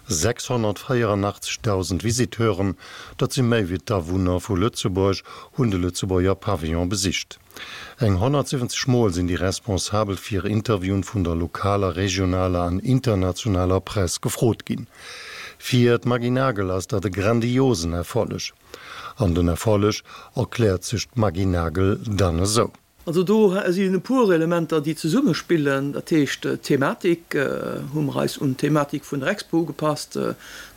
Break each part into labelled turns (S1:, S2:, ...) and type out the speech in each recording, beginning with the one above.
S1: 684.000 Visiteuren, dat si méi wéi d'Awunner vu Lëtzebuerg, hunn de Lëtzebuerger Pavillon besicht. Eng 170 Mol sinn déi Responsabel fir Interviewen vun der lokaler, regionaler an internationaler Press gefrot ginn. Fir d'Maggy Nagel ass dat e grandiosen Erfolleg. An den Erfolleg erkläert sech d'Maggy Nagel dann esou.
S2: Also do sinn e puer Elementer, déi zesummespillen. Dat heescht, d'Thematik hu mer eis un d'Thematik vun der Expo ugepasst,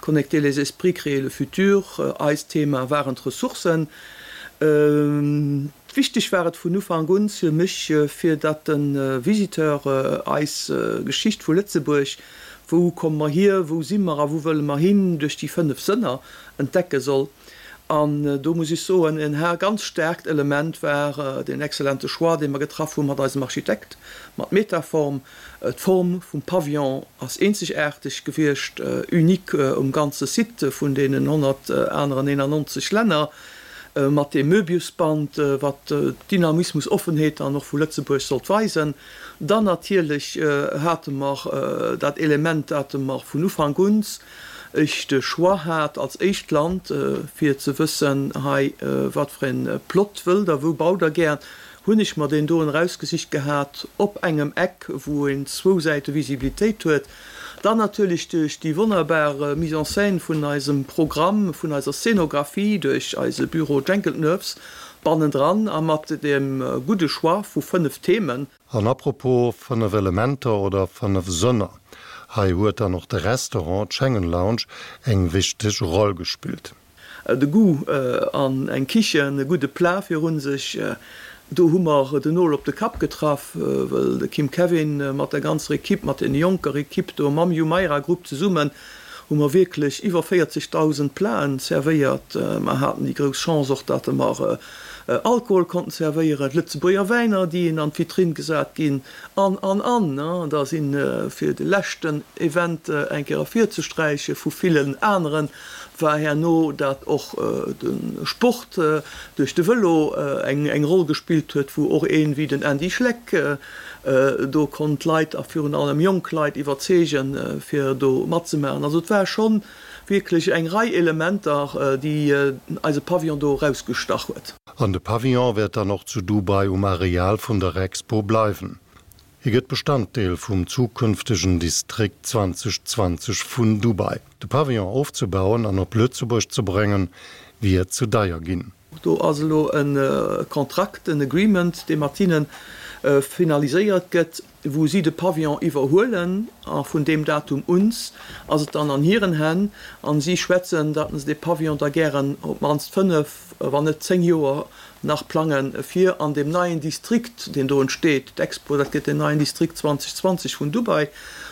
S2: Connecter les esprits, créer le futur. Eist Thema waren d'Ressourcen. Wichteg war et vun Ufank un fir mech, fir datt de Visiteur eis Geschicht vu Lëtzebuerg, wou komme mer hier, wou si mer a wou wëlle mer hin, duerch déi 5 Sënner entdecke soll. An do muss ech soen, en ganz staarkt Element war deen exzellente Choix, dee mer getraff hu mat eisem Architekt, mat Metaform. D'Form vum Pavillon ass eenzegaarteg gewiescht, unique um ganze Site vun deenen 100 aneren 91 Länner, mat deem Möbiusband, wat Dynamismus, Offenheet dann och vu Lëtzebuerg sollt weisen. Dann natierlech hate mer dat Element, dat mer vun Ufank un ech de Choix hat als éischt Land, fir ze wëssen, hei wat fir e Plot wëllt Der, wou baut Der gär, hunn ech mer deen doen erausgesicht gehat op engem Eck, wou een zwou Säite Visibilitéit huet. Dann natierlech duerch déi wonnerbar Mise en scène vun eisem Programm, vun eiser Scénographie duerch eise Büro Jenkeltnerves bannendran a mat deem gudde Choix vu 5 Themen.
S1: An apropos 5 Elementer oder 5 Sënner, hei huet dann och de Restaurant, d'Schengen Lounge, eng wichteg Roll gespillt.
S2: De Goût an eng Kichen, e gudde Plat virun sech, do hu mer den Nol op de Kapp getraff, wëll de Kim Kevin mat der ganzer Equipe, mat den jonker Equipe do mam Jumeirah Group zesummen, hu mer wierklech iwwer 40.000 Platen servéiert. Mer haten déi grouss Chance och, datt mer Alkohol konnten zerwéieren, Lëtzebuerger Wäiner, déi een an d'Vitrinn gesat ginn, an, an, an. Da sinn, fir de leschten Event eng Kéier ervirzesträiche vu villen aneren, war herno, dat och de Sport duerch de Vëlo eng Roll gespillt huet, wou och een wéi den Andy Schleck do konnt Leit, a virun allem jonk Leit, iwwerzeegen, fir do matzemaachen. Also et war schonn Wierklech eng Rei Elementer, déi eise Pavillon do erausgestach huet.
S1: An de Pavillon wäert dann och zu Dubai um Areal vun der Expo bleiwen. Hie gëtt Bestanddeel vum zukünftegen Distrikt 2020 vun Dubai. De Pavillon ofzebauen an op Lëtzebuerg ze bréngen, wier ze deier ginn.
S2: Do ass elo e Kontrakt, en Agreement, dee mat hinne finaliséiert gëtt, wou si de Pavillon iwwerhuelen. A vun deem Datum uns ass et dann an hiren Hänn. A si schwätzen, datt se dee Pavillon da gären op d'mannst fënnef, wann net zéng Joer nach plangen, fir an deem neien Distrikt, deen do entsteet, d'Expo, dat gëtt deen neien Distrikt 2020 vun Dubai,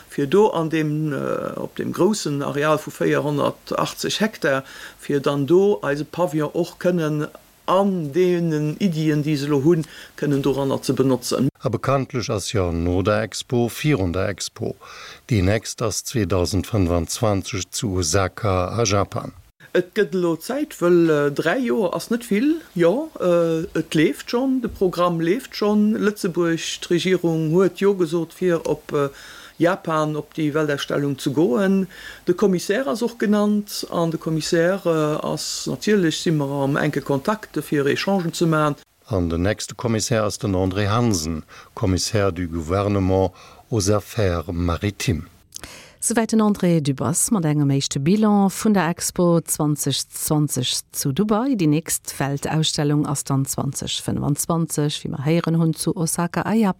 S2: fir do an deem, op deem groussen Areal vu 480 Hektar, fir dann do eise Pavillon och kënnen an deenen Iddien, déi se elo hunn, kënnen doranner ze benotzen.
S1: A bekanntlech ass jo no der Expo virun der Expo. Déi nächst ass 2025 zu Osaka a Japan.
S2: Et gëtt elo Zäit, wëll 3 Joer ass net vill. Jo, et leeft schonn, de Programm leeft schonn. Lëtzebuerg, d'Regierung huet Jo gesot fir op Japan op déi Weltausstellung ze goen. De Commissaire ass och genannt an de Commissaire ass, natierlech si mer am enke Kontakt fir Echangen ze maachen.
S1: An den nächste Commissaire ass den André Hansen, Commissaire du Gouvernement aux Affaires maritimes.
S3: Souwäit den André Dübbers mat engem éischte Bilan vun der Expo 2020 zu Dubai. Déi nächst Weltausstellung ass dann 2025, wéi mer héieren hunn, zu Osaka a Japan.